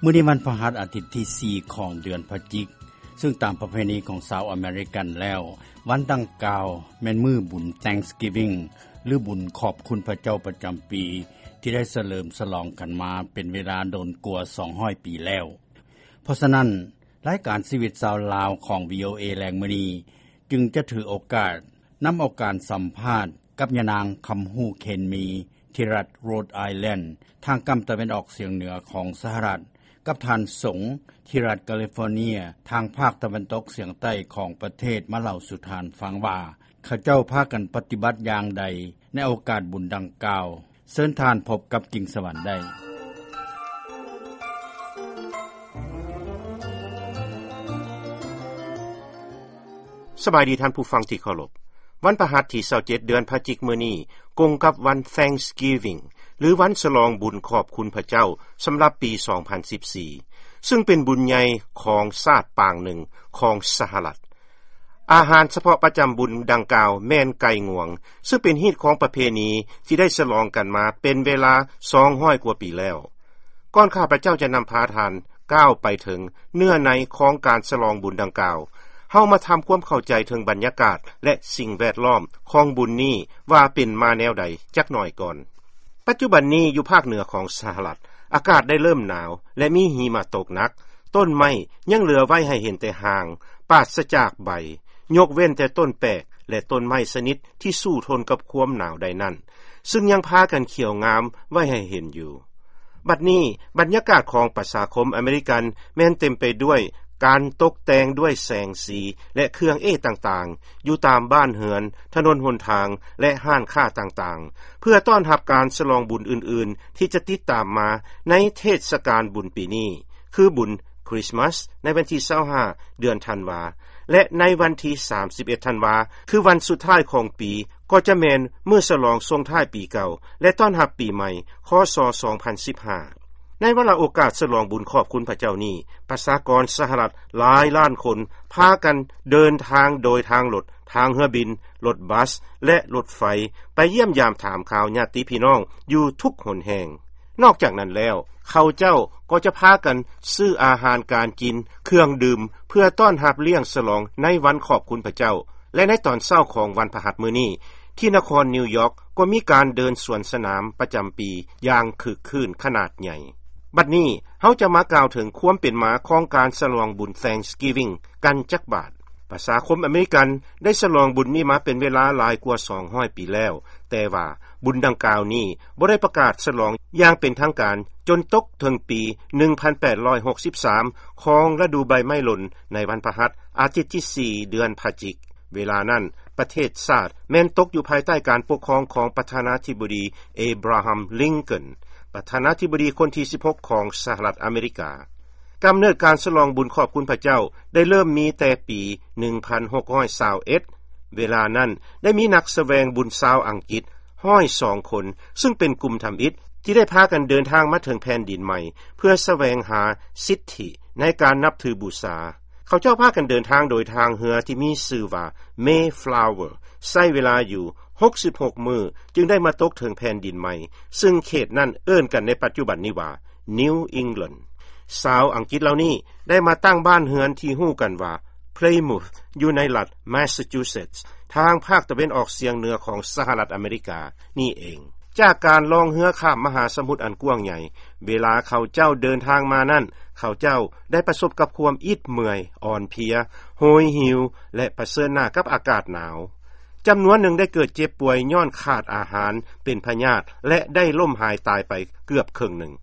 ມື້ນີ້ວັນພະຫັດ ອາທິດທີສີ່ຂອງເດືອນພະຈິກ, ຊຶ່ງຕາມປະເພນີຂອງຊາວອາເມລິກັນແລ້ວ, ວັນດັ່ງກ່າວແມ່ນມື້ບຸນ Thanksgiving ຫຼືບຸນຂອບຄຸນພະເຈົ້າປະຈຳປີ ທີ່ໄດ້ສະເຫຼີມສະຫຼອງກັນມາເປັນເວລາດົນກວ່າສອງຮ້ອຍປີແລ້ວ. ເພາະສະນັ້ນ, ລາຍການຊີວິດຊາວລາວຂອງ ວີໂອເອ ແລງມື້ນີ້ ຈຶ່ງຈະຖືໂອກາດນຳເອົາການສຳພາດກັບຍານາງ ຄຳຮູ້ ເຄນມີ ທີ່ລັດ Rhode Island ທາງກຳຕາເວັນອອກສຽງເໜືອຂອງສະຫະລັດ, ກັບທ່ານ ສົງ ທີ່ລັດ California ທາງພາກຕາເວັນຕົກສຽງໃຕ້ຂອງປະເທດ ມາເລົ່າສູ່ທ່ານຟັງວ່າ ເຂົາເຈົ້າພາກັນປະຕິບັດຢ່າງໃດໃນໂອກາດບຸນດັ່ງກ່າວ. ເຊີນທ່ານພົບກັບ ກິ່ງສະຫວັນ ໄດ້. ສະບາຍດີທ່ານຜູ້ຟັງທີ່ເຄົາລົບ. ວັນພະຫັດທີຊາວເຈັດ ເດືອນພະຈິກມື້ນີ້ ກົງກັບວັນ Thanksgiving ຫຼືວັນສະຫຼອງບຸນຂອບຄຸນພະເຈົ້າ ສຳລັບປີສອງພັນສິບສີ່ ຊຶ່ງເປັນບຸນໃຫຍ່ຂອງຊາດປາງໜຶ່ງຂອງສະຫະລັດ. ອາຫານສະເພາະປະຈຳບຸນດັ່ງກ່າວແມ່ນໄກ່ງວງ, ຊຶ່ງເປັນຮີດຄອງປະເພນີທີ່ໄດ້ສະຫຼອງກັນມາເປັນເວລາສອງຮ້ອຍກວ່າປີແລ້ວ. ກ່ອນຂ້າພະເຈົ້າຈະນຳພາທ່ານກ້າວໄປເຖິງເນື້ອໃນຂອງການສະຫຼອງບຸນດັ່ງກ່າວ, ເຮົາມາທຳຄວາມເຂົ້າໃຈເຖິງບັນຍາກາດ ແລະ ສິ່ງແວດລ້ອມຂອງບຸນນີ້ວ່າເປັນມາແນວໃດຈັກໜ້ອຍກ່ອນ. ປັດຈຸບັນນີ້ຢູ່ພາກເໜືອຂອງສະຫະລັດ, ອາກາດໄດ້ເລີ່ມໜາວ ແລະ ມີຫິມະຕົກໜັກ. ຕົ້ນໄມ້ຍັງເຫຼືອໄວ້ໃຫ້ເຫັນແຕ່ຮ່າງ, ປາສະຈາກໃບ, ຍົກເວັ້ນແຕ່ຕົ້ນແປກ ແລະ ຕົ້ນໄມ້ຊະນິດທີ່ສູ້ທົນກັບຄວາມໜາວໄດ້ນັ້ນ, ຊຶ່ງຍັງພາກັນຂຽວງາມໄວ້ໃຫ້ເຫັນຢູ່. ບັດນີ້ບັນຍາກາດຂອງປະຊາຄົມອາເມລິກັນແມ່ນເຕັມໄປດ້ວຍການຕົກແຕ່ງດ້ວຍແສງສີ ແລະ ເຄື່ອງເອດຕ່າງໆ ຢູ່ຕາມບ້ານເຮືອນ, ຖະໜົນຫົນທາງ ແລະ ຮ້ານຄ້າຕ່າງໆ ເພື່ອຕ້ອນຮັບການສະຫຼອງບຸນອື່ນໆ ທີ່ຈະຕິດຕາມມາໃນເທດສະການບຸນປີນີ້, ຄືບຸນ Christmas ໃນວັນທີຊາວຫ້າ ເດືອນທັນວາ ແລະ ໃນວັນທີສາມສິບເອັດ ທັນວາ ຄືວັນສຸດທ້າຍຂອງປີ ກໍຈະແມ່ນມື້ສະຫຼອງສົ່ງທ້າຍປີເກົ່າ ແລະ ຕ້ອນຮັບປີໃໝ່ ຄ.ສ. ສອງພັນສິບຫ້າ. ໃນວາລະໂອກາດສະຫຼອງບຸນຂອບຄຸນພະເຈົ້ານີ້, ປະຊາກອນສະຫະລັດຫຼາຍລ້ານຄົນພາກັນເດີນທາງໂດຍທາງລົດ, ທາງເຮືອບິນ, ລົດບັສ ແລະ ລົດໄຟ ໄປຢ້ຽມຢາມຖາມຂ່າວຍາດຕິພີ່ນ້ອງຢູ່ທຸກຫົນແຫ່ງ. ນອກຈາກນັ້ນແລ້ວ, ເຂົາເຈົ້າກໍຈະພາກັນຊື້ອາຫານການກິນ, ເຄື່ອງດື່ມ ເພື່ອຕ້ອນຮັບລ້ຽງສະຫຼອງໃນວັນຂອບຄຸນພະເຈົ້າ. ແລະ ໃນຕອນເຊົ້າຂອງວັນພະຫັດມື້ນີ້, ທີ່ນະຄອນນິວຢອກກໍມີການເດີນສວນສະໜາມປະຈຳປີຢ່າງຄຶກຄື້ນຂະໜາດໃຫຍ່. ບັດນີ້ເຮົາຈະມາກ່າວເຖິງຄວາມເປັນມາຂອງການສະຫຼອງບຸນ Thanksgiving ກັນຈັກບາດ. ປະຊາຄົມອາເມລິກັນໄດ້ສະຫຼອງບຸນນີ້ມາເປັນເວລາຫຼາຍກວ່າສອງຮ້ອຍປີແລ້ວ, ແຕ່ວ່າບຸນດັ່ງກ່າວນີ້ບໍ່ໄດ້ປະກາດສະຫຼອງຢ່າງເປັນທາງການຈົນຕົກເຖິງປີໜຶ່ງພັນແປດຮ້ອຍຫົກສິບສາມ ຂອງລະດູໃບໄມ້ຫຼົ່ນໃນວັນພະຫັດ ອາທິດທີສີ່ ເດືອນພະຈິກ. ເວລານັ້ນປະເທດຊາດແມ່ນຕົກຢູ່ພາຍໃຕ້ການປົກຄອງຂອງປະທານາທິບໍດີ ເອບຣາຮາມ ລິງເກີນ ປະທານາທິບໍດີຄົນທີສິບຫົກຂອງສະຫະລັດອາເມລິກາ. ກຳເນີດການສະຫຼອງບຸນຂອບຄຸນພະເຈົ້າໄດ້ເລີ່ມມີແຕ່ປີໜຶ່ງພັນຫົກຮ້ອຍຊາວເອັດ. ເວລານັ້ນໄດ້ມີນັກສະແຫວງບຸນຊາວອັງກິດຮ້ອຍສອງຄົນ, ຊຶ່ງເປັນກຸ່ມທຳອິດທີ່ໄດ້ພາກັນເດີນທາງມາເຖິງແຜ່ນດິນໃໝ່ ເພື່ອສະແຫວງຫາສິດທິໃນການນັບຖືບູຊາ. ເຂົາເຈົ້າພາກັນເດີນທາງໂດຍທາງເຮືອທີ່ມີຊື່ວ່າ Mayflower, ໃຊ້ເວລາຢູ່ຫົກສິບຫົກມື້ຈຶ່ງໄດ້ມາຕົກເຖິງແຜ່ນດິນໃໝ່, ຊຶ່ງເຂດນັ້ນເອີ້ນກັນໃນປັດຈຸບັນນີ້ວ່າ New England. ຊາວອັງກິດເຫຼົ່ານີ້ໄດ້ມາຕັ້ງບ້ານເຮືອນທີ່ຮູ້ກັນວ່າ Plymouth ຢູ່ໃນລັດ Massachusetts ທາງພາກຕາເວັນອອກສຽງເໜືອຂອງສະຫະລັດອາເມລິການີ້ເອງ. ຈາກການລ່ອງເຮືອຂ້າມມະຫາສະໝຸດອັນກວ້າງໃຫຍ່, ເວລາເຂົາເຈົ້າເດີນທາງມານັ້ນ, ເຂົາເຈົ້າໄດ້ປະສົບກັບຄວາມອິດເມື່ອຍ, ອ່ອນເພຍ, ໂຫຍຫິວ ແລະ ປະເຊີນໜ້າກັບອາກາດໜາວ. ຈຳນວນໜຶ່ງໄດ້ເກີດເຈັບປ່ວຍຍ້ອນຂາດອາຫານ, ເປັນພະຍາດ ແລະ ໄດ້ລົ້ມຫາຍຕາຍໄປເກືອບເຄິ່ງໜຶ່ງ.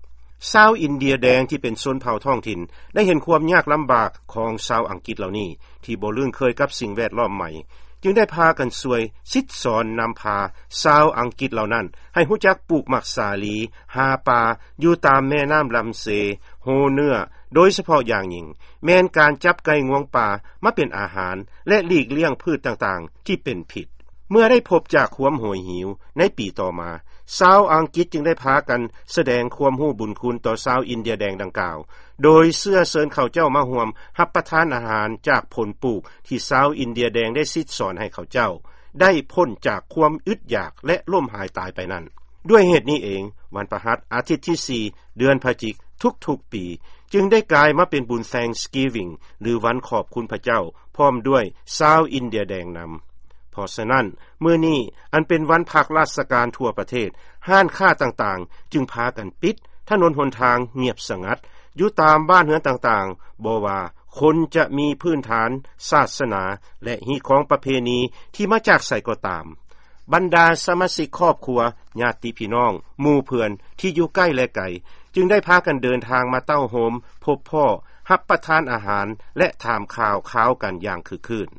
ຊາວອິນເດຍແດງທີ່ເປັນຊົນເຜົ່າທ້ອງຖິ່ນໄດ້ເຫັນຄວາມຍາກລຳບາກຂອງຊາວອັງກິດເຫຼົ່ານີ້ ທີ່ບໍ່ລຶ້ງເຄີຍກັບສິ່ງແວດລ້ອມໃໝ່, ຈຶ່ງໄດ້ພາກັນຊ່ວຍສິດສອນນຳພາຊາວອັງກິດເຫຼົ່ານັ້ນໃຫ້ຮູ້ຈັກປູກໝາກສາລີ, ຫາປາຢູ່ຕາມແມ່ນ້ຳລຳເຊ, ໂຮເນື້ອ, ໂດຍສະເພາະຢ່າງຍິ່ງແມ່ນການຈັບໄກ່ງວງປ່າມາເປັນອາຫານ ແລະ ຫຼີກລ້ຽງພືດຕ່າງໆທີ່ເປັນພິດ. ເມື່ອໄດ້ພົບຈາກຄວາມໂຫຍຫິວໃນປີຕໍ່ມາ, ຊາວອັງກິດຈຶ່ງໄດ້ພາກັນສະແດງຄວາມຮູ້ບຸນຄຸນຕໍ່ຊາວອິນເດຍແດງດັ່ງກ່າວ, ໂດຍເຊື້ອເຊີນເຂົາເຈົ້າມາຮ່ວມຮັບປະທານອາຫານຈາກຜົນປູກທີ່ຊາວອິນເດຍແດງໄດ້ສິດສອນໃຫ້ເຂົາເຈົ້າໄດ້ພົ້ນຈາກຄວາມອຶດຢາກ ແລະ ລົ້ມຫາຍຕາຍໄປນັ້ນ. ດ້ວຍເຫດນີ້ເອງ, ວັນພະຫັດ ອາທິດທີສີ່ ເດືອນພະຈິກ ທຸກໆປີ ຈຶ່ງໄດ້ກາຍມາເປັນບຸນ Thanksgiving ຫຼືວັນຂອບຄຸນພະເຈົ້າ ພ້ອມດ້ວຍຊາວອິນເດຍແດງນຳ. ເພາະສະນັ້ນ ມື້ນີ້ອັນເປັນວັນພັກລາຊະການທົ່ວປະເທດ, ຮ້ານຄ້າຕ່າງໆຈຶ່ງພາກັນປິດ, ຖະໜົນຫົນທາງງຽບສະຫງັດ. ຢູ່ຕາມບ້ານເຮືອນຕ່າງໆ, ບໍ່ວ່າຄົນຈະມີພື້ນຖານສາສະໜາ ແລະ ຮີດຄອງປະເພນີທີ່ມາຈາກໃສກໍຕາມ, ບັນດາສະມາຊິກຄອບຄົວ, ຍາດຕິພີ່ນ້ອງ, ໝູ່ເພື່ອນທີ່ຢູ່ໃກ້ ແລະ ໄກ ຈຶ່ງໄດ້ພາກັນເດີນທາງມາເຕົ້າໂຮມ, ພົບພໍ້, ຮັບປະທານອາຫານ ແລະ ຖາມຂ່າວຄາວກັນຢ່າງຄຶກຄື້ນ.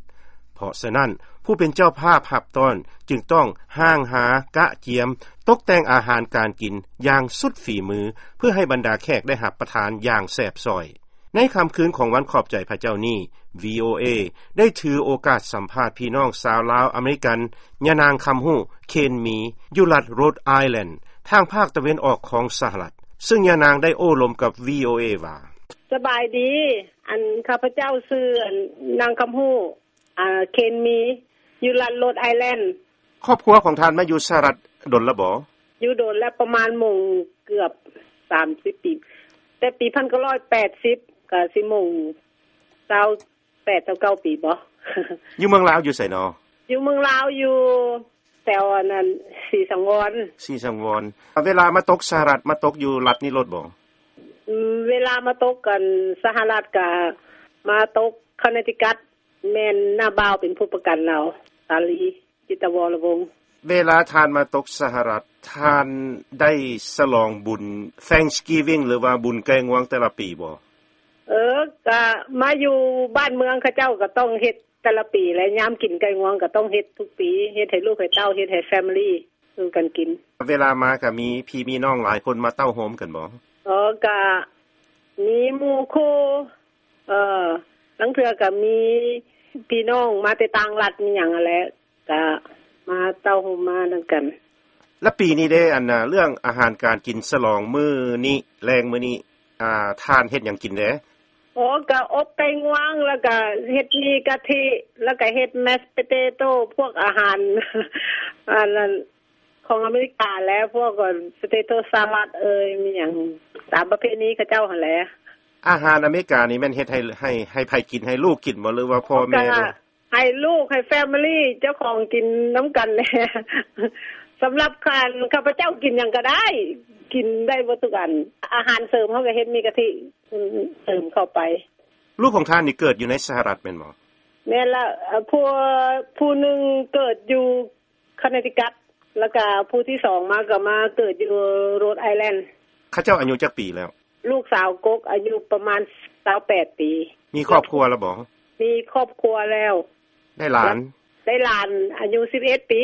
ເພາະສະນັ້ນ, ຜູ້ເປັນເຈົ້າພາບຮັບຕ້ອນຈຶ່ງຕ້ອງຮ່າງຫາ, ກະກຽມ, ຕົກແຕ່ງອາຫານການກິນຢ່າງສຸດຝີມື ເພື່ອໃຫ້ບັນດາແຂກໄດ້ຮັບປະທານຢ່າງແຊບຊ້ອຍ. ໃນຄ່ຳຄືນຂອງວັນຂອບໃຈພະເຈົ້ານີ້, ວີໂອເອ ໄດ້ຖືໂອກາດສຳພາດພີ່ນ້ອງຊາວລາວອາເມລິກັນ ຍານາງຄຳຮູ້ ເຄນມີ ຢູ່ລັດໂຣດໄອແລນ ທາງພາກຕາເວັນອອກຂອງສະຫະລັດ, ເຊິ່ງຍານາງໄດ້ໂອ້ລົມກັບ ວີໂອເອ ວ່າ: ສະບາຍດີ, ອັນ ຂ້າພະເຈົ້າຊື່ ອັນ ນາງຄຳຮູ້ ອ່າ ເຄນມີ ຢູ່ລັດໂຣດໄອແລນ. ຄອບຄົວຂອງທ່ານມາຢູ່ສະຫະລັດດົນແລ້ວບໍ? ຢູ່ດົນແລ້ວ, ປະມານມົງເກືອບສາມສິບປີ, ແຕ່ປີພັນເກົ້າຮ້ອຍແປດສິບ ກະຊິມົງຊາວແປດ ຊາວເກົ້າປີບໍ. ຢູ່ເມືອງລາວຢູ່ໃສນໍ? ຢູ່ເມືອງລາວ ຢູ່ແຖວອັນນັ້ນ ສີສັງວອນ. ສີສັງວອນ. ເວລາມາຕົກສະຫະລັດ ມາຕົກຢູ່ລັດນີ້ໂລດບໍ? ອືມ, ເວລາມາຕົກ ອັນ ສະຫະລັດ ກະມາຕົກຄອນເນຕິກັດ. ແມ່ນນ້າບ່າວເປັນຜູ້ປະກັນລາວ, ສາລີ ຈິດຕະວໍລະວົງ. ເວລາທ່ານມາຕົກສະຫະລັດ, ທ່ານໄດ້ສະຫຼອງບຸນ Thanksgiving ຫຼືວ່າບຸນໄກ່ງວງແຕ່ລະປີບໍ? ເອີ, ກະມາຢູ່ບ້ານເມືອງເຂົາເຈົ້າກະຕ້ອງເຮັດແຕ່ລະປີແຫຼະ, ຍາມກິນໄກ່ງວງກະຕ້ອງເຮັດທຸກປີ, ເຮັດໃຫ້ລູກໃຫ້ເຕົ້າ, ເຮັດໃຫ້ family ສູ່ກັນກິນ. ເວລາມາກະມີພີ່ມີນ້ອງຫຼາຍຄົນມາເຕົ້າໂຮມກັນບໍ? ເອີ, ກະມີໝູ່ຄູ່ ເອີ, ລາງເທື່ອກະມີພີ່ນ້ອງມາແຕ່ຕ່າງລັດມີຫຍັງຫັ້ນແຫຼະ, ກະມາເຕົ້າໂຮມມານຳກັນ. ແລະ ປີນີ້ເດ້, ອັນ ເລື່ອງອາຫານການກິນສະຫຼອງມື້ນີ້, ແລງມື້ນີ້, ອ່າ, ທ່ານເຮັດຫຍັງກິນແດ່? ໂອ, ກະອົບໄກ່ງວງ, ແລ້ວກະເຮັດໝີ່ກະທິ, ແລ້ວກະເຮັດ mashed potato, ພວກອາຫານ ອັນນັ້ນ ຂອງອາເມລິກາແຫຼະ, ພວກ potato salad ເອີຍ, ມີຫຍັງຕາມປະເພນີເຂົາເຈົ້າຫັ້ນແຫຼະ. ອາຫານອາເມລິການີ້ແມ່ນເຮັດໃຫ້, ໃຫ້, ໃຫ້ໃຜກິນ? ໃຫ້ລູກກິນບໍ ຫຼືວ່າພໍ່ແມ່? ໃຫ້ລູກ, ໃຫ້ family ເຈົ້າຂອງກິນນຳກັນແຫຼະ. ສຳລັບຂ້າ, ຂ້າພະເຈົ້າກິນຫຍັງກະໄດ້, ກິນໄດ້ເບິດທຸກອັນ. ອາຫານເສີມເຮົາກະເຮັດໝີ່ກະທິເສີມເຂົ້າໄປ. ລູກຂອງທ່ານນີ້ເກີດຢູ່ໃນສະຫະລັດແມ່ນບໍ່? ແມ່ນລະ, ຜູ້, ຜູ້ໜຶ່ງເກີດຢູ່ ຄອນເນຕິກັດ, ແລ້ວກະຜູ້ທີສອງມາກະມາເກີດຢູ່ໂຣດໄອແລນ. ເຂົາເຈົ້າອາຍຸຈັກປີແລ້ວ? ລູກສາວກົກອາຍຸປະມານຊາວແປດປີ. ມີຄອບຄົວແລ້ວບໍ່? ມີຄອບຄົວແລ້ວ. ໄດ້ຫຼານ? ໄດ້ຫຼານອາຍຸສິບເອັດປີ.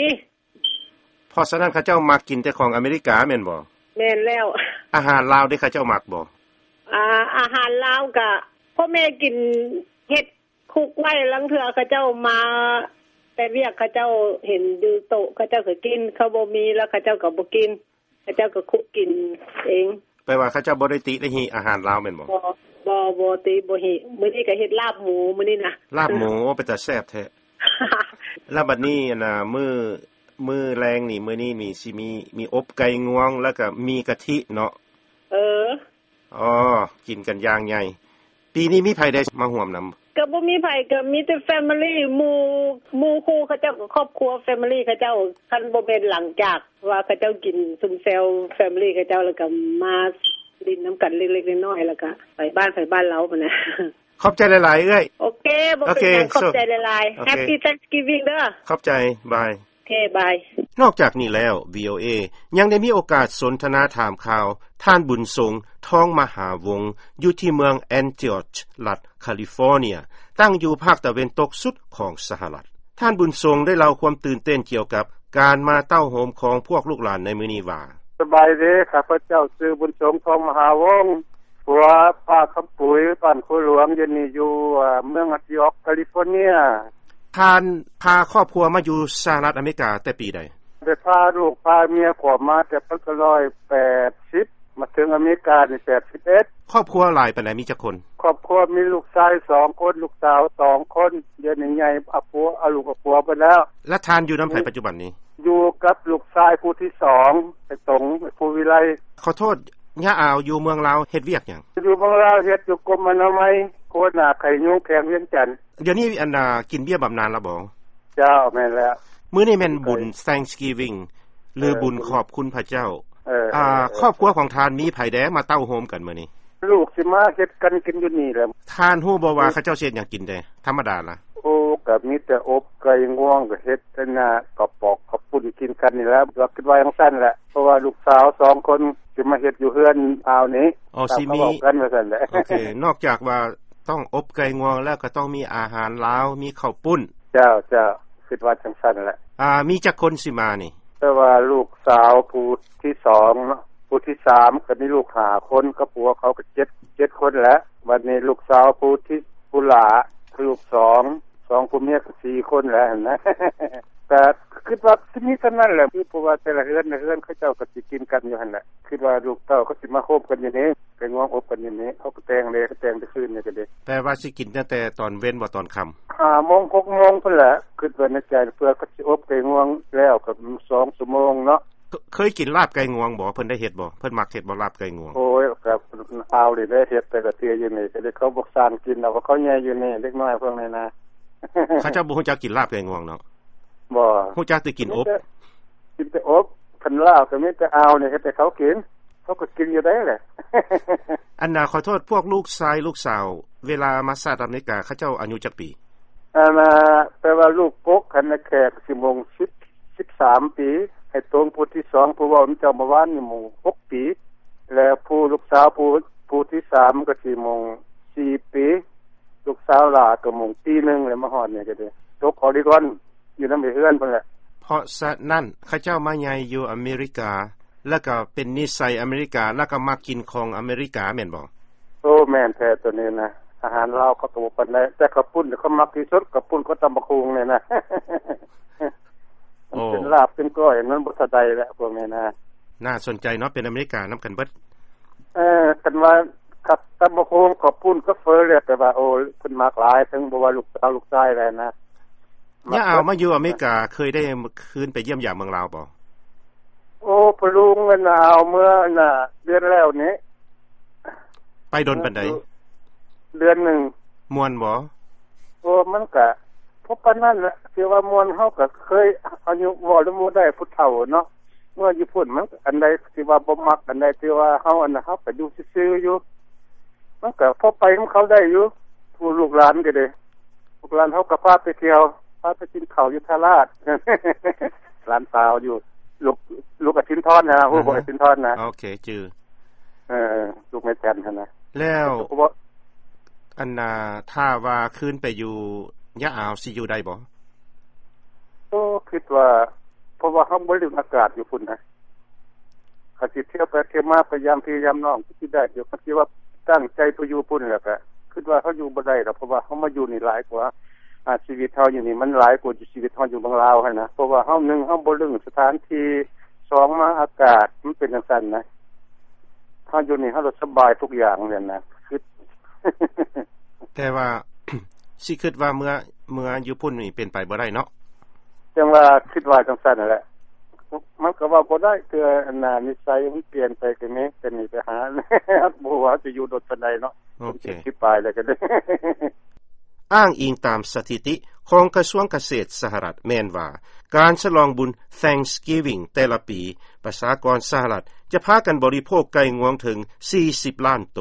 ເພາະສະນັ້ນເຂົາເຈົ້າມັກກິນແຕ່ຂອງອາເມລິກາແມ່ນບໍ່? ແມ່ນແລ້ວ. ອາຫານລາວເດ ເຂົາເຈົ້າມັກບໍ່? ອາ, ອາຫານລາວກະພໍ່ແມ່ກິນ, ເຮັດ ຄຸກໄວ້, ລາງເທື່ອເຂົາເຈົ້າມາແຕ່ວຽກ, ເຂົາເຈົ້າເຫັນຢູ່ໂຕະ, ເຂົາເຈົ້າກະກິນ, ເຂົາບໍ່ມີແລ້ວເຂົາເຈົ້າກະບໍ່ກິນ, ເຂົາເຈົ້າກະຄຸກກິນເອງ. ແປວ່າເຂົາເຈົ້າບໍ່ໄດ້ຕິໄດ້ຫິອາຫານລາວແມ່ນບໍ່? ບໍ່, ບໍ່, ບໍ່ຕິ, ບໍ່ຫິ. ມື້ນີ້ກະເຮັດລາບໝູ, ມື້ນີ້ນະ. ລາບໝູ, ໂອ, ເປັນຕາແຊບແທ້. ແລ້ວບັດນີ້, ອັນນ່າ, ມື້, ມື້ແລງນີ້, ມື້ນີ້ນີ້, ຊິມີ, ມີອົບໄກ່ງວງ, ແລ້ວກະໝີ່ກະທິເນາະ. ເອີ. ອໍ, ກິນກັນຢ່າງໃຫຍ່. ປີນີ້ມີໃຜໄດ້ມາຮ່ວມນຳ? ກະບໍ່ມີໃຜ, ກະມີແຕ່ family, ໝູ່, ໝູ່ຄູ່ເຂົາເຈົ້າ, ຄອບຄົວ family ເຂົາເຈົ້າ. ຄັນບໍ່ແມ່ນຫຼັງຈາກວ່າເຂົາເຈົ້າກິນຊຸມແຊວ family ເຂົາເຈົ້າ, ແລ້ວກະມາຫຼິ້ນນຳກັນເລັກໆນ້ອຍໆ, ແລ້ວກະໄປບ້ານໃຜບ້ານລາວຫັ້ນນະ. ຂອບໃຈຫຼາຍໆ ເອື້ອຍ. ໂອເຄ, ບໍ່ເປັນຫຍັງ, ຂອບໃຈຫຼາຍໆ. Happy Thanksgiving ເດີ. ຂອບໃຈ, ບາຍ. ໂອເຄ, ບາຍ. ນອກຈາກນີ້ແລ້ວ, ວີໂອເອ ຍັງໄດ້ມີໂອກາດສົນທະນາຖາມຂ່າວ ທ່ານ ບຸນສົງ ທອງມະຫາວົງ ຢູ່ທີ່ເມືອງ Antioch ລັດ California, ຕັ້ງຢູ່ພາກຕາເວັນຕົກສຸດຂອງສະຫະລັດ. ທ່ານ ບຸນສົງ ໄດ້ເລົ່າຄວາມຕື່ນເຕັ້ນກ່ຽວກັບການມາເຕົ້າໂຮມຂອງພວກລູກຫຼານໃນມື້ນີ້ວ່າ: ສະບາຍດີ, ຂ້າພະເຈົ້າຊື່ ບຸນສົງ ທອງມະຫາວົງ ຜົວປ້າຄຳປຸຍ ບ້ານໂຄຫຼວງ, ດຽວນີ້ຢູ່, ເມືອງ Antioch California. ທ່ານພາຄອບຄົວມາຢູ່ສະຫະລັດອາເມລິກາແຕ່ປີໃດ? ໄດ້ພາລູກພາເມຍເຂົ້າມາແຕ່ພັນເກົ້າຮ້ອຍແປດສິບ, ມາເຖິງອາເມລິການີ້ແປດສິບເອັດ. ຄອບຄົວຫຼາຍປານໃດ? ມີຈັກຄົນ? ຄອບຄົວມີລູກຊາຍສອງຄົນ, ລູກສາວສອງຄົນ, ດຽວນີ້ໃຫຍ່, ເອົາຜົວ, ເອົາລູກເອົາຜົວໄປແລ້ວ. ແລະ ທ່ານຢູ່ນຳໃຜປັດຈຸບັນນີ້? ຢູ່ກັບລູກຊາຍຜູ້ທີສອງ, ໄອ້ຕົງ, ໄອ້ພູວິໄລ. ຂໍໂທດ, ຍາອາວຢູ່ເມືອງລາວເຮັດວຽກຫຍັງ? ຢູ່ເມືອງລາວເຮັດຢູ່ກົມອະນາໄມ ຫົວໜ້າໄຂ້ຍຸງແຂວງວຽງຈັນ. ດຽວນີ້ອັນນ່າ ກິນເບ້ຍບຳນານລະບໍ່? ເຈົ້າ ແມ່ນແລ້ວ. ມື້ນີ້ແມ່ນບຸນ Thanksgiving ຫຼື ເອີ ບຸນຂອບຄຸນພະເຈົ້າ. ເອີ ອາ ເອີ ເອີ ຄອບຄົວຂອງທ່ານມີໃຜແດ່ມາເຕົ້າໂຮມກັນມື້ນີ້? ລູກຊິມາເຮັດກັນກິນຢູ່ນີ້ແຫຼະ. ທ່ານຮູ້ບໍ່ວ່າ ເອີ ເຂົາເຈົ້າຊິເຮັດຫຍັງກິນແດ່? ທຳມະດາລະ? ໂອ້ ກໍມີແຕ່ອົບໄກ່ງວງ ກໍເຮັດອັນນ່າ ກະປອກເຂົ້າປຸ້ນກິນກັນນີ້ແຫຼະ ກໍຄິດວ່າຈັ່ງຊັ້ນແຫຼະ ເພາະວ່າລູກສາວສອງຄົນຊິມາເຮັດຢູ່ເຮືອນອາວນີ້. ອໍ ຊິມີ ເວົ້າກັນວ່າຊັ້ນແຫຼະ. ໂອເຄ ນອກຈາກວ່າຕ້ອງອົບໄກ່ງວງແລ້ວ ກໍຕ້ອງມີອາຫານລາວ ມີເຂົ້າປຸ້ນ. ເຈົ້າ ເຈົ້າ ຄິດວ່າຈັ່ງຊັ້ນແຫຼະ. ອາ ມີຈັກຄົນຊິມານີ້? ແຕ່ວ່າລູກສາວຜູ້ທີສອງເນາະ ຜູ້ທີສາມ ກໍມີລູກຫ້າຄົນ ກັບຜົວເຂົາກໍເຈັດ ເຈັດຄົນແຫຼະ. ບັດນີ້ລູກສາວຜູ້ທີ ຜູ້ຫຼ້າ ລູກສອງ ສອງຜົວເມຍກໍສີ່ຄົນແຫຼະຫັ້ນນະ. ກໍຄິດວ່າຊິມີສ່ຳນັ້ນແຫຼະ ຄືເພາະວ່າແຕ່ລະເຮືອນ ລະເຮືອນເຂົາເຈົ້າກໍຊິກິນກັນຢູ່ຫັ້ນແຫຼະ. ຄິດວ່າລູກເຕົ້າກໍຊິມາໂຮມກັນຢູ່ນີ້ ໄກ່ງວງອົບກັນຢູ່ນີ້ ເຂົາກໍແຕ່ງເດ້ ກໍແຕ່ງແຕ່ຄືນນີ້ກໍເດ້. ແປວ່າຊິກິນຕັ້ງແຕ່ຕອນເວັນບໍ່ ຕອນຄ່ຳ? ຫ້າໂມງ ຫົກໂມງພຸ້ນແຫຼະ. ຄິດວ່າໃນໃຈ ເພື່ອເຂົາຊິອົບໄກ່ງວງແລ້ວກໍສອງຊົ່ວໂມງເນາະ. ເຄີ- ເຄີຍກິນລາບໄກ່ງວງບໍ່? ເພິ່ນໄດ້ເຮັດບໍ່? ເພິ່ນມັກເຮັດບໍ່ ລາບໄກ່ງວງ? ໂອ້ຍ ກັບອາວນີ້ໄດ້ເຮັດແຕ່ລະເທື່ອຢູ່ນີ້ ກໍໄດ້ເຂົາບໍ່ສ້າງກິນເອົາ ເຂົາໃຫຍ່ຢູ່ນີ້ ເດັກນ້ອຍພວກນີ້ນະ. ເຂົາເຈົ້າບໍ່ຮູ້ຈັກກິນລາບໄກ່ງວງເນາະ? ບໍ່. ຮູ້ຈັກແຕ່ກິນອົບ. ມີແຕ່ ກິນແຕ່ອົບ. ຄັນລາບກໍມີແຕ່ອາວນີ້ເຮັດໃຫ້ເຂົາກິນ ເຂົາກໍກິນຢູ່ໄດ້ແຫຼະ. ອັນນ່າ ຂໍໂທດ ພວກລູກຊາຍລູກສາວ ເວລາມາສະຫະລັດອາເມລິກາ ເຂົາເຈົ້າອາຍຸຈັກປີ? ອັນນ່າ ແປວ່າລູກກົກຫັ້ນນະ ແຂກຊິໂມງສິບ ສິບສາມປີ ໃຫ້ຕົງຜູ້ທີສອງ ຜູ້ເວົ້ານຳເຈົ້າເມື່ອວານນີ້ໂມງຫົກປີ ແລະ ຜູ້ລູກສາວຜູ້ ຜູ້ທີສາມກໍຊິໂມງສີ່ປີ ລູກສາວຫຼ້າກໍໂມງປີໜຶ່ງ ແລ້ວມາຮອດນີ້ກໍໄດ້ຕົກອໍລິກອນ ຢູ່ນຳເຮືອນພຸ້ນແຫຼະ. ເພາະສະນັ້ນ ເຂົາເຈົ້າມາໃຫຍ່ຢູ່ອາເມລິກາ ແລ້ວກໍເປັນນິໄສອາເມລິກາ ແລ້ວກໍມັກກິນຂອງອາເມລິກາແມ່ນບໍ່? ໂອ້ ແມ່ນແທ້ໂຕນີ້ນະ ອາຫານລາວເຂົາກໍບໍ່ປານໃດ ແຕ່ເຂົ້າປຸ້ນເຂົາມັກທີ່ສຸດ ເຂົ້າປຸ້ນກັບຕຳບັກຫຸ່ງນີ້ນະ. ໂອ້ ມັນເປັນລາບເປັນກ້ອຍ ມັນບໍ່ເທົ່າໃດແຫຼະພວກນີ້ນະ. ໜ້າສົນໃຈເນາະ ເປັນອາເມລິການຳກັນເບິດ. ເອີ ຄັນວ່າກັບຕຳບັກຫຸ່ງ ເຂົ້າປຸ້ນ ກັບເຝີແລ້ວ ແຕ່ວ່າ ໂອ້ ເພິ່ນມັກຫຼາຍ ເຖິງບໍ່ວ່າລູກສາວລູກຊາຍແລ້ວນະ. ຍາອາວມາຢູ່ອາເມລິກາ ເຄີຍໄດ້ຄືນໄປຢ້ຽມຢາມເມືອງລາວບໍ່? ໂອ້ ພໍ່ລຸງ ອັນນ່າ ເອົາເມືອ ອັນນ່າ ເດືອນແລ້ວນີ້. ໄປດົນປານໃດ? ເດືອນໜຶ່ງ. ມ່ວນບໍ່? ໂອ້ ມັນກະພໍປານນັ້ນແຫຼະ ຖືວ່າມ່ວນ. ເຮົາກະເຄີຍ ອາຍຸ ເວົ້ານຳບໍ່ໄດ້ ຜູ້ເຖົ້າເນາະ ເມື່ອຢູ່ພຸ້ນ ມັນອັນໃດທີ່ວ່າບໍ່ມັກ ອັນໃດທີ່ວ່າເຮົາ ອັນນັ້ນ ເຮົາກະຢູ່ຊື່ໆຢູ່ ມັນກະພໍໄປນຳເຂົາໄດ້ຢູ່. ຜູ້ລູກຫຼານກໍດີ ລູກຫຼານເຮົາກໍພາໄປທ່ຽວ ພາໄປກິນເຂົ້າຢູ່ທ່າລາດ ຫຼານສາວຢູ່ ລູກ ລູກອາສິນທອນນະ ຮູ້ບໍ່? ອາສິນທອນນະ. ໂອເຄ ຈື່. ເອີ ລູກແມ່ຈັນຫັ້ນນະ. ແລ້ວ ອັນນ່າ ຖ້າວ່າຄືນໄປຢູ່ຍາອາວ ຊິຢູ່ໄດ້ບໍ່? ໂອ້ ຄິດວ່າ ເພາະວ່າເຮົາບໍ່ລຶ້ງອາກາດຢູ່ພຸ້ນນະ ຄັນຊິທ່ຽວໄປທ່ຽວມາ ໄປຢາມພີ່ຢາມນ້ອງ ຄືຊິໄດ້ຢູ່. ຄັນຊິວ່າຕັ້ງໃຈໄປຢູ່ພຸ້ນແລ້ວກະ ຄິດວ່າເຮົາຢູ່ບໍ່ໄດ້ດອກ ເພາະວ່າເຮົາມາຢູ່ນີ້ຫຼາຍກວ່າ ອາ ຊີວິດເຮົາຢູ່ນີ້ມັນຫຼາຍກວ່າຊີວິດເຮົາຢູ່ເມືອງລາວຫັ້ນນະ. ເພາະວ່າເຮົາ ໜຶ່ງ ເຮົາບໍ່ລຶ້ງສະຖານທີ່ ສອງ ມາອາກາດມັນເປັນຈັ່ງຊັ້ນນະ ເຮົາຢູ່ນີ້ເຮົາລະສະບາຍທຸກຢ່າງຫັ້ນນະ ຄິດ. ແຕ່ວ່າ ຊິຄິດວ່າເມືອ ເມືອຢູ່ພຸ້ນນີ້ເປັນໄປບໍ່ໄດ້ເນາະ. ຈັ່ງວ່າຄິດວ່າຈັ່ງຊັ້ນຫັ້ນແຫຼະ ມັນກໍເວົ້າບໍ່ໄດ້ ເທື່ອອັນນ່າ ນິໄສມັນປ່ຽນໄປກໍມີ ແຕ່ນີ້ໄປຫາ ບໍ່ຮູ້ວ່າຊິຢູ່ດົນປານໃດເນາະ. ໂອເຄ ສິບປາຍແລ້ວກໍໄດ້. ອ້າງອີງຕາມສະຖິຕິຂອງກະຊວງກະເສດສະຫະລັດແມ່ນວ່າ ການສະຫຼອງບຸນ Thanksgiving ແຕ່ລະປີ ປະຊາກອນສະຫະລັດຈະພາກັນບໍລິໂພກໄກ່ງວງເຖິງສີ່ສິບລ້ານໂຕ.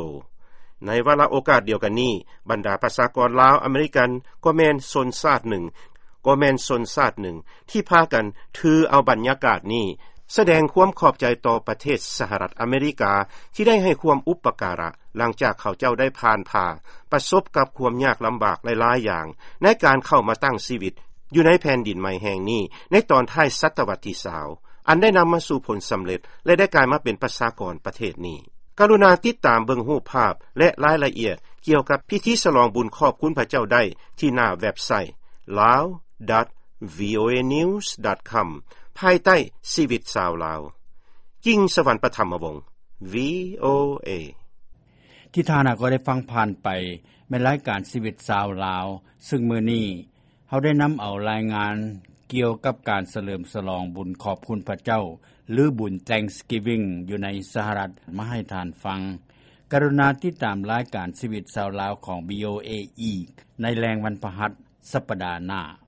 ໃນວາລະໂອກາດດຽວກັນນີ້ ບັນດາປະຊາກອນລາວອາເມລິກັນ ກໍແມ່ນຊົນຊາດໜຶ່ງ ກໍແມ່ນຊົນຊາດໜຶ່ງທີ່ພາກັນຖືເອົາບັນຍາກາດນີ້ ສະແດງຄວາມຂອບໃຈຕໍ່ປະເທດສະຫະລັດອາເມລິກາ ທີ່ໄດ້ໃຫ້ຄວາມອຸປະກາລະ ຫຼັງຈາກເຂົາເຈົ້າໄດ້ຜ່ານຜ່າ ປະສົບກັບຄວາມຍາກລຳບາກຫຼາຍໆຢ່າງ ໃນການເຂົ້າມາຕັ້ງຊີວິດຢູ່ໃນແຜ່ນດິນໃໝ່ແຫ່ງນີ້ ໃນຕອນທ້າຍສະຕະວັດທີຊາວ ອັນໄດ້ນຳມາສູ່ຜົນສຳເລັດ ແລະ ໄດ້ກາຍມາເປັນປະຊາກອນປະເທດນີ້. ກະລຸນາຕິດຕາມເບິ່ງຮູບພາບ ແລະ ລາຍລະອຽດກ່ຽວກັບພິທີສະຫຼອງບຸນຂອບຄຸນພະເຈົ້າໄດ້ທີ່ໜ້າເວັບໄຊ lawdot voanews.com ພາຍໃຕ້ຊີວິດຊາວລາວ. ກິ່ງສະຫວັນປະຖຳມະວົງ VOA. ທີ່ທ່ານກໍໄດ້ຟັງຜ່ານໄປ ແມ່ນລາຍການຊີວິດຊາວລາວ, ຊຶ່ງມື້ນີ້ເຮົາໄດ້ນຳເອົາລາຍງານ ກ່ຽວກັບການສະເຫຼີມສະຫຼອງບຸນຂອບຄຸນພະເຈົ້າ ຫຼືບຸນ Thanksgiving ຢູ່ໃນສະຫະລັດ ມາໃຫ້ທ່ານຟັງ. ກະລຸນາຕິດຕາມລາຍການຊີວິດຊາວລາວຂອງ VOA ອີກໃນແລງວັນພະຫັດສັປດາໜ້າ.